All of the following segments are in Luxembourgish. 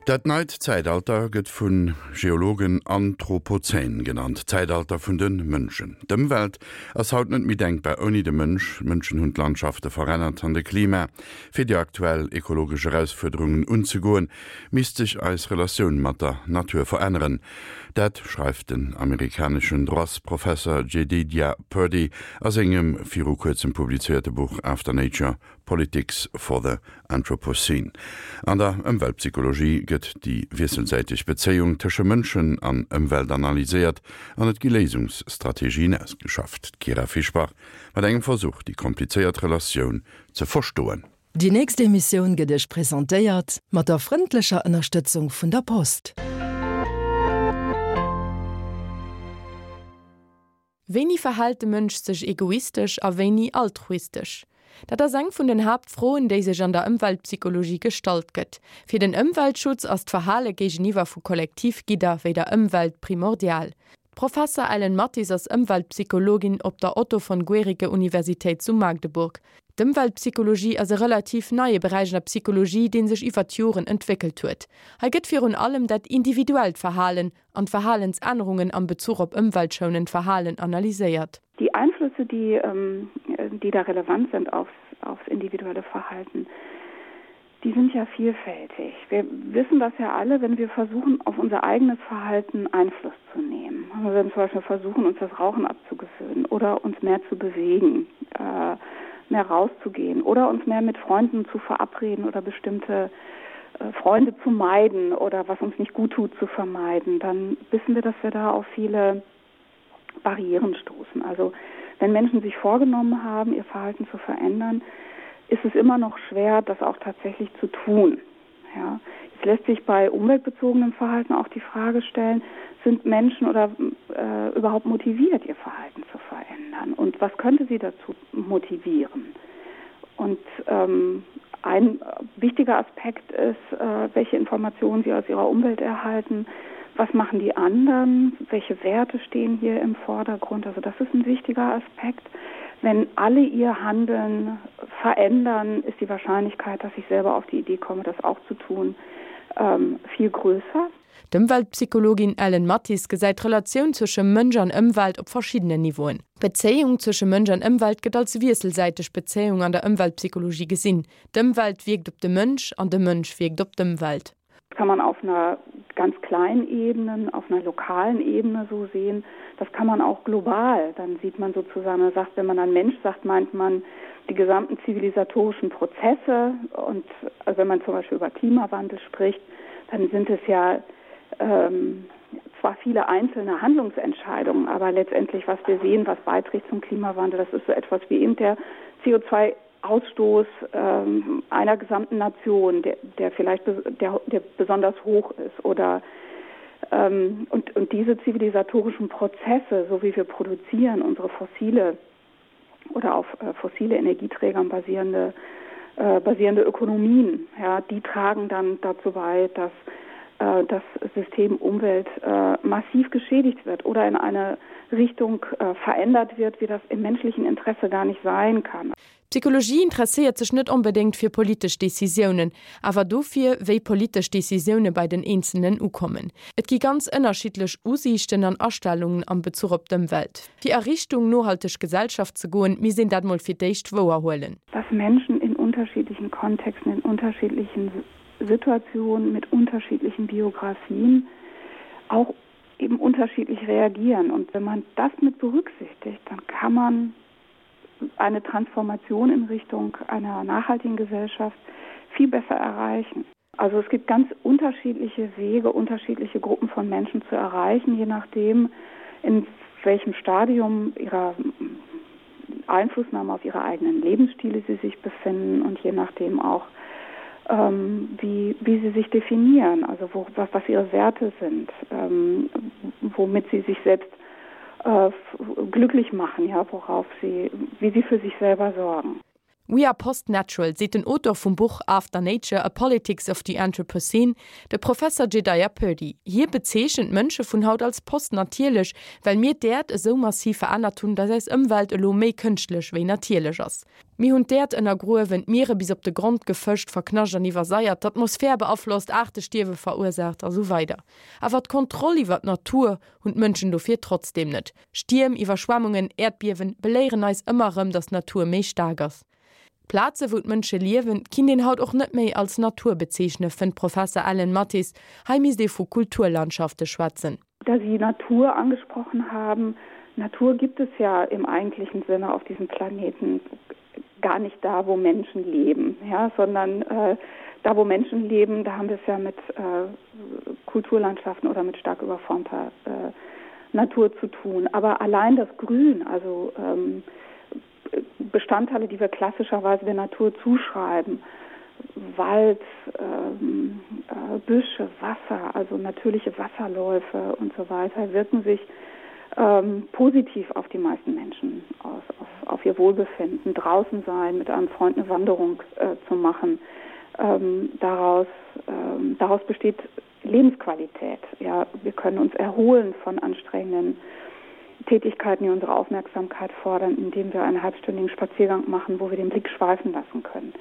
Dat neit Zäitalter gëtt vu Geologen Anthropozän genannt, d'Zäitalter vun de Mënschen. D'Ëmwelt ass haut net méi denkbar ouni de Mënsch. D'Mënschen hunn d'Landschafte verännert an de Klima. Fir déi aktuell ekologesch Erausfuerderungen unzegoen, misst sech eis Relatioun mat der Natur veränneren. Dat schreift den amerikaneschen Droitsprofesser Jedediah Purdy a sengem viru kuerzem publizéierte Buch After Nature, Politics for the Anthropocene. An der Ëmweltpsychologie gëtt déi wiesselsäiteg Bezéiung tësche Mënschen an Ëmwelt analyséiert an et gi Léisungsstrategien ausgeschafft. D'Kyra Fischbach mat engem Versuch, déi komplizéiert Relatioun ze verstoen. Déi nächst Emissioun gëtt Iech presentéiert mat der frëndlecher Ënnerstëtzung vun der Post. Wéini verhält de Mënsch sech egoistesch a wéini altruistesch? Dat ass eng vun den Haaptfroen, déi sech an der Ëmweltpsychologie gestallt gëtt. Fir den Ëmweltschutz ass d'Verhale géigeniwwer vu Kollektivgidder wéi der Ëmwelt primordial. D'Professer Ellen Mathis ass Ëmweltpsychologin op der Otto von Guericke Universitéit zu Magdeburg. D'Ëmweltpsychologie ass e relativ neie Beräich an der Psychologie, dee sech iwwer d'Joren entwéckelt huet. Hei gëtt virun allem dat individuellt Verhalen an d'Verhalensännerungen am Bezuch op ëmweltschounend Verhalen analyséiert. Die Einflüsse, die, ähm, die da relevant sind aufs, aufs individuelle Verhalten, die sind ja vielfältig. Wir wissen das ja alle, wenn wir versuchen, auf unser eigenes Verhalten Einfluss zu nehmen. Wir werden zum Beispiel versuchen, uns das Rauchen abzugewöhnen oder uns mehr zu bewegen, äh, mehr rauszugehen oder uns mehr mit Freunden zu verabreden oder bestimmte äh, Freunde zu meiden oder was uns nicht gut tut zu vermeiden, dann wissen wir, dass wir da auf viele Barrieren stoßen. Also wenn Menschen sich vorgenommen haben, ihr Verhalten zu verändern, ist es immer noch schwer, das auch tatsächlich zu tun. Ja. Es lässt sich bei umweltbezogenem Verhalten auch die Frage stellen, sind Menschen oder äh, überhaupt motiviert, ihr Verhalten zu verändern? Und was könnte sie dazu motivieren? Und ähm, ein wichtiger Aspekt ist, äh, welche Informationen sie aus ihrer Umwelt erhalten, was machen die anderen, welche Werte stehen hier im Vordergrund. Also das ist ein wichtiger Aspekt. Wenn alle ihr Handeln verändern, ist die Wahrscheinlichkeit, dass ich selber auf die Idee komme, das auch zu tun, ähm, viel größer. D'Ëmweltpsychologin Ellen Mathis gesäit d'Relatioun zwësche Mënsch an Ëmwelt op verschiddenen Niveauen. D'Bezéiung zwësche Mënsch an Ëmwelt gëtt als wiesselsäiteg Bezéiung an der Ëmweltpsychologie gesinn. D'Ëmwelt wierkt op de Mënsch an de Mënsch wierkt op d'Ëmwelt. Das kann man auf einer ganz kleinen Ebene, auf einer lokalen Ebene so sehen. Das kann man auch global. Dann sieht man sozusagen, man sagt, wenn man an Mensch sagt, meint man die gesamten zivilisatorischen Prozesse und also wenn man zum Beispiel über Klimawandel spricht, dann sind es ja ähm, zwar viele einzelne Handlungsentscheidungen, aber letztendlich, was wir sehen, was beiträgt zum Klimawandel, das ist so etwas wie eben der CO2 Ausstoß ähm, einer gesamten Nation, der, der vielleicht der, der besonders hoch ist oder ähm, und, und diese zivilisatorischen Prozesse, so wie wir produzieren, unsere fossile oder auf äh, fossile Energieträgern basierende, äh, basierende Ökonomien, ja, die tragen dann dazu bei, dass äh, das System Umwelt äh, massiv geschädigt wird oder in eine Richtung äh, verändert wird, wie das im menschlichen Interesse gar nicht sein kann. D'Psychologie interesséiert sech net onbedéngt fir politesch Decisiounen, awer dofir, wéi politesch Decisioune bei den Eenzelnen ukommen. Et gi ganz ënnerschiddlech Usiichten an Astellungen am Bezuch op d'Ëmwelt. Fir a Richtung nohalteg Gesellschaft ze goen, misst een dat mol fir d'éischt wouer huelen. Dass Menschen in unterschiedlichen Kontexten, in unterschiedlichen Situationen, mit unterschiedlichen Biografien auch eben unterschiedlich reagieren. Und wenn man das mit berücksichtigt, dann kann man eine Transformation in Richtung einer nachhaltigen Gesellschaft viel besser erreichen. Also es gibt ganz unterschiedliche Wege, unterschiedliche Gruppen von Menschen zu erreichen, je nachdem, in welchem Stadium ihrer Einflussnahme auf ihre eigenen Lebensstile sie sich befinden und je nachdem auch, ähm, wie, wie sie sich definieren, also wo, was, was ihre Werte sind, ähm, womit sie sich selbst äh, glücklich machen, ja, worauf sie, wie sie für sich selber sorgen. We are post-natural, seet den Auteur vum Buch After Nature, A Politics of the Anthropocene, de Professer Jedediah Purdy. Hie bezeechent d'Mënsche vun haut als post-natierlech, well mir d'Äerd esou massiv verännert hunn, datt eis Ëmwelt elo méi kënschtlech wéi natierlech ass. Mir hunn d'Äerd ënnergruewen, d'Miere bis op de Grond gefëscht, verknascht an iwwersaiert, d'Atmosphär beaflosst, Aartestierwe verursaacht a sou weider. Awer d'Kontroll iwwer d'Natur hunn d'Mënschen dofir trotzdeem net. Stierm, Iwwerschwemmungen, Äerdbiewen beléieren eis ëmmer erëm, datt d'Natur méi staark ass. D'Plaze wou d'Mënsche liewen, kinnt een haut och net méi als Natur bezeechne, fënnt d'Professer Ellen Mathis. Hei misst ee vu Kulturlandschafte schwätzen. Da Sie Natur angesprochen haben, Natur gibt es ja im eigentlichen Sinne auf diesem Planeten gar nicht da, wo Menschen leben, ja, sondern äh, da wo Menschen leben, da haben wir es ja mit äh, Kulturlandschaften oder mit stark überformter äh, Natur zu tun. Aber allein das Grün, also ähm, Bestandteile, die wir klassischerweise der Natur zuschreiben, Wald, ähm, äh, Büsche, Wasser, also natürliche Wasserläufe und so weiter, wirken sich ähm, positiv auf die meisten Menschen aus, auf, auf ihr Wohlbefinden, draußen sein, mit einem Freund eine Wanderung äh, zu machen. Ähm, daraus, ähm, daraus besteht Lebensqualität. Ja, wir können uns erholen von anstrengenden Tätigkeiten, die unsere Aufmerksamkeit fordern, indem wir einen halbstündigen Spaziergang machen, wo wir den Blick schweifen lassen können.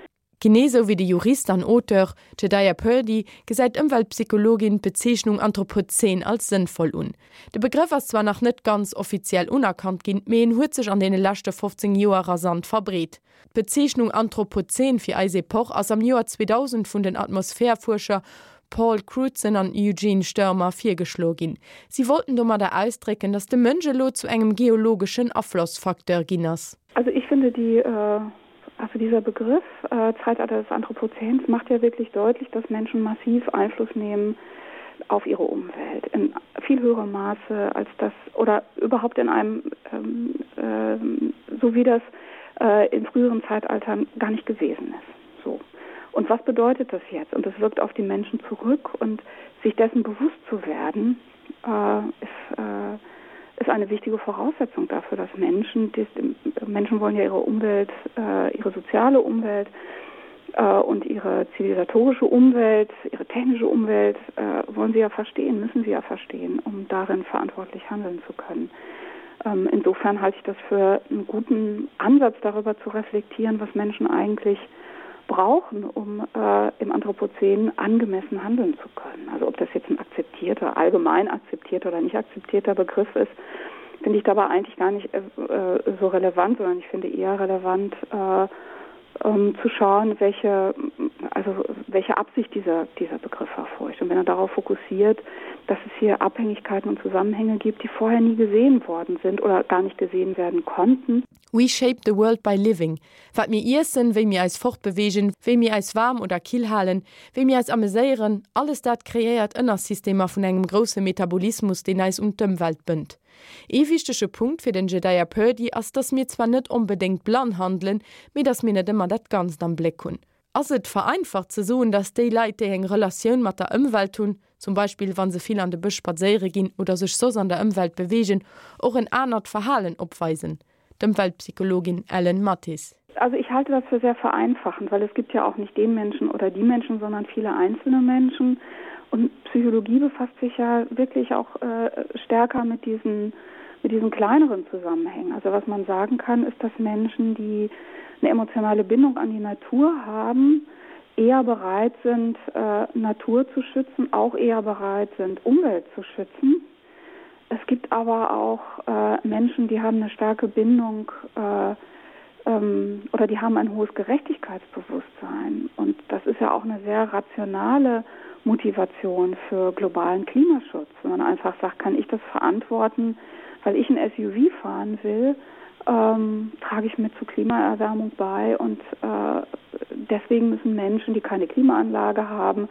Genee sou wéi de Jurist an Auteur Jedediah Purdy gesäit d'Ëmweltpsychologin d'Bezeechnung Anthropozän als sënnvoll un. De Begrëff ass zwar nach net ganz offiziell unerkannt ginn, mee en huet sech an deene leschte 15 Joer rasant verbreet. D'Bezeechnung Anthropozän fir eis Epoch ass am Joer 2000 vun den Atmosphärfuerscher Paul Crutzen an Eugene Störmer virgeschloe ginn. Si wollten domadder ausdrécken, datt de Mënsch elo zu engem geologeschen Aflossfacteur ginn ass. Also ich finde die Also dieser Begriff äh, Zeitalter des Anthropozäns macht ja wirklich deutlich, dass Menschen massiv Einfluss nehmen auf ihre Umwelt in viel höherem Maße als das oder überhaupt in einem ähm, äh, so wie das äh, in früheren Zeitaltern gar nicht gewesen ist. So. Und was bedeutet das jetzt? Und das wirkt auf die Menschen zurück und sich dessen bewusst zu werden, äh, ist, äh, ist eine wichtige Voraussetzung dafür, dass Menschen, die, Menschen wollen ja ihre Umwelt, äh, ihre soziale Umwelt äh, und ihre zivilisatorische Umwelt, ihre technische Umwelt äh, wollen sie ja verstehen, müssen sie ja verstehen, um darin verantwortlich handeln zu können. Ähm, insofern halte ich das für einen guten Ansatz darüber zu reflektieren, was Menschen eigentlich brauchen, um äh, im Anthropozän angemessen handeln zu können. Also ob das jetzt ein akzeptierter, allgemein akzeptierter oder nicht akzeptierter Begriff ist, finde ich dabei eigentlich gar nicht äh, äh so relevant, sondern ich finde eher relevant äh, ähm, zu schauen, welche, also welche Absicht dieser, dieser Begriff verfolgt. Und wenn er darauf fokussiert, dass es hier Abhängigkeiten und Zusammenhänge gibt, die vorher nie gesehen worden sind oder gar nicht gesehen werden konnten. We shape the world by living. Wat mir iessen, wéi mir eis fortbeweegen, wéi mir eis waarm oder kill halen, wéi mir eis ameséieren, alles dat kreéiert Ënnersystemer vun engem grousse Metabolismus, deen eis un d'Ëmwelt bënnt. Ee wichtege Punkt fir den Jedediah Purdy ass, dass mir zwar net onbedéngt blann handelen, mee dass mir net ëmmer dat Ganzt am Bléck hunn. Ass et vereinfacht ze soen, dass déi Leit, déi eng Relatioun mat der Ëmwelt hunn, zum Beispill wa se vill an de Bësch spadséiere ginn oder sech soss an der Ëmwelt beweegen, och en anert Verhalen opweisen? D'Ëmweltpsychologin Ellen Mathis. Also ich halte das für sehr vereinfachend, weil es gibt ja auch nicht den Menschen oder die Menschen, sondern viele einzelne Menschen. Und Psychologie befasst sich ja wirklich auch äh, stärker mit diesen, mit diesen kleineren Zusammenhängen. Also was man sagen kann, ist, dass Menschen, die eine emotionale Bindung an die Natur haben, eher bereit sind, äh, Natur zu schützen, auch eher bereit sind, Umwelt zu schützen. Es gibt aber auch äh, Menschen, die haben eine starke Bindung äh, ähm, oder die haben ein hohes Gerechtigkeitsbewusstsein. Und das ist ja auch eine sehr rationale Motivation für globalen Klimaschutz. Wenn man einfach sagt, kann ich das verantworten, weil ich ein SUV fahren will, ähm, trage ich mit zur Klimaerwärmung bei und äh, deswegen müssen Menschen, die keine Klimaanlage haben,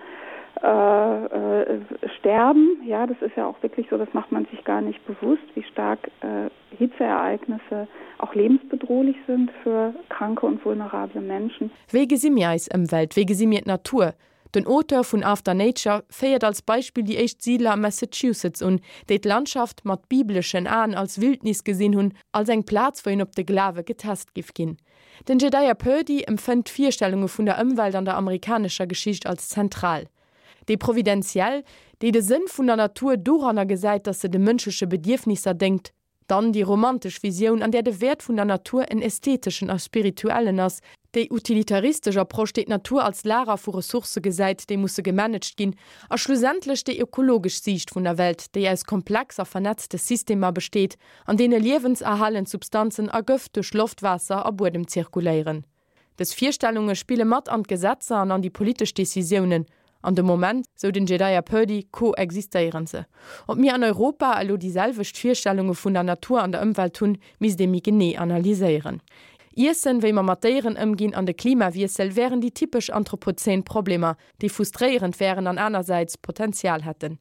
äh, äh, sterben. Ja, das ist ja auch wirklich so, das macht man sich gar nicht bewusst, wie stark äh, Hitzeereignisse auch lebensbedrohlich sind für kranke und vulnerable Menschen. Wéi gesi mir eis Ëmwelt? Wéi gesi mir d'Natur? Den Auteur vun After Nature féiert als Beispill déi éischt Siidler am Massachusetts un, déi d'Landschaft mat bibleschen Aen als Wildnis gesinn hunn, als eng Plaz, wou een op de Glawe getest giff ginn. Den Jedediah Purdy empfënnt d'Virstellunge vun der Ëmwelt an der amerikanescher Geschicht als zentral. Déi providentiell, déi de Sënn vun der Natur doranner gesäit, datt se de mënschleche Bedierfnisser déngt. Dann déi romantesch Visioun, an där de Wäert vun der Natur en ästheteschen a spirituellen ass, déi utilitaristesch Approche, déi d'Natur als Lager vu Ressourcë gesäit, déi musse gemanagt ginn, a schlussendlech déi ökologesch Siicht vun der Welt, déi aus komplex a vernetzte Systemer besteet, an deene liewenserhalend Substanzen a Gëft duerch Loft, Waasser a Buedem zirkuléieren. Dës Virstellunge spille mat an d'Gesetzer an an déi politesch Decisiounen. An de Moment, sou den Jedediah Purdy, koexistéieren se. Ob mir an Europa elo déi selwecht Virstellunge vun der Natur an der Ëmwelt hunn, misst ee méi genee analyséieren. Iessen, wéi mer mat Déieren ëmginn an de Klimawiessel wären déi typesch anthropozän Problemer, déi frustréierend wären an anersäits Potenzial hätten.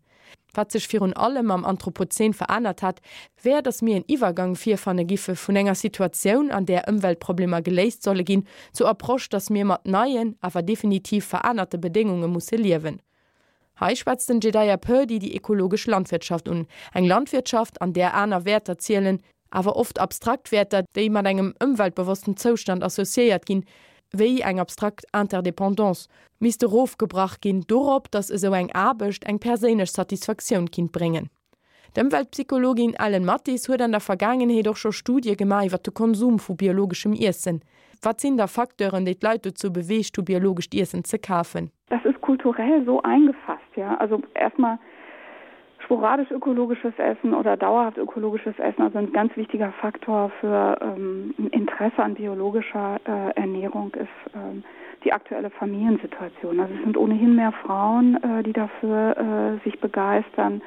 Wat sech virun allem am Anthropozän verännert hätt, wär, datt mir en Iwwergang virfanne giffe vun enger Situatioun, an där Ëmweltproblemer geléist solle ginn, zur Approche, datt mir mat neien, awer definitiv verännerte Bedéngunge musse liewen. Hei schwätzt den Jedediah Purdy déi ekologesch Landwirtschaft un, eng Landwirtschaft, an där aner Wäerter zielen, awer oft abstrakt Wäerter, déi mat engem ëmweltbewossten Zoustand associéiert ginn, wéi eng abstrakt Interdépendance, misst erofgebrach ginn dorop, datt esou eng Aarbecht eng perséinlech Satisfaktioun kinnt bréngen. D'Ëmweltpsychologin Ellen Mathis huet an der Vergaangenheet och scho Studie gemaach iwwer de Konsum vu biologeschem Iessen. Wat sinn da Facteuren, déi d'Leit dozou beweegt hu biologescht Iessen ze kafen? Das ist kulturell so eingefasst, ja. Also erstmal sporadisch ökologisches Essen oder dauerhaft ökologisches Essen, also ein ganz wichtiger Faktor für ähm, Interesse an biologischer äh, Ernährung ist ähm, die aktuelle Familiensituation. Also es sind ohnehin mehr Frauen, äh, die dafür äh, sich begeistern.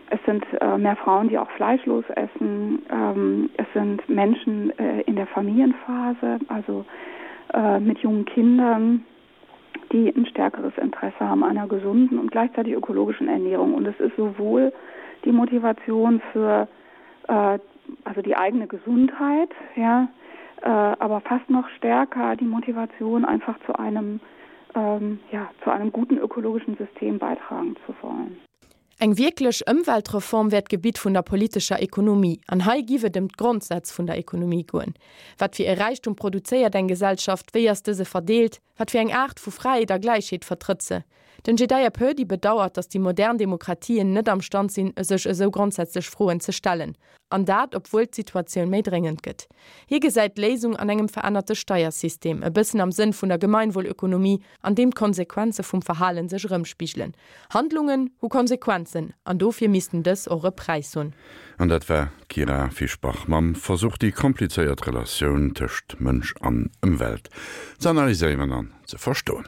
Es sind äh, mehr Frauen, die auch fleischlos essen. Ähm, es sind Menschen äh, in der Familienphase, also äh, mit jungen Kindern, die ein stärkeres Interesse haben einer gesunden und gleichzeitig ökologischen Ernährung. Und es ist sowohl die Motivation für äh, also die eigene Gesundheit, ja, äh, aber fast noch stärker die Motivation, einfach zu einem, ähm, ja, zu einem guten ökologischen System beitragen zu wollen. Eng wierklech Ëmweltreform wär d'Gebitt vun der politescher Ekonomie, an hei giff et ëm d'Grondsätz vun der Ekonomie goen. Wat fir e Räichtum produzéiert eng Gesellschaft, wéi ass dëse verdeelt, wat fir eng Aart vu Fräiheet a Gläichheet vertrëtt se? Den Jedediah Purdy bedauert, datt déi modern Demokratien net am Stand sinn, sech esou grondsätzlech Froen ze stellen. An dat, obwuel d'Situatioun méi dréngend gëtt. Hie gesäit d'Léisung an engem verännerte Steiersystem, e bëssen am Sënn vun der Gemeinwohlökonomie, an deem d'Konsequenze vum Verhale sech erëmspigelen. Handlungen hu Konsequenzen, an dofir missten dës och e Präis hunn. An dat war d'Kyra Fischbach mam Versuch, déi komplizéiert Relatioun tëscht Mënsch an Ëmwelt ze analyséieren an ze verstoen.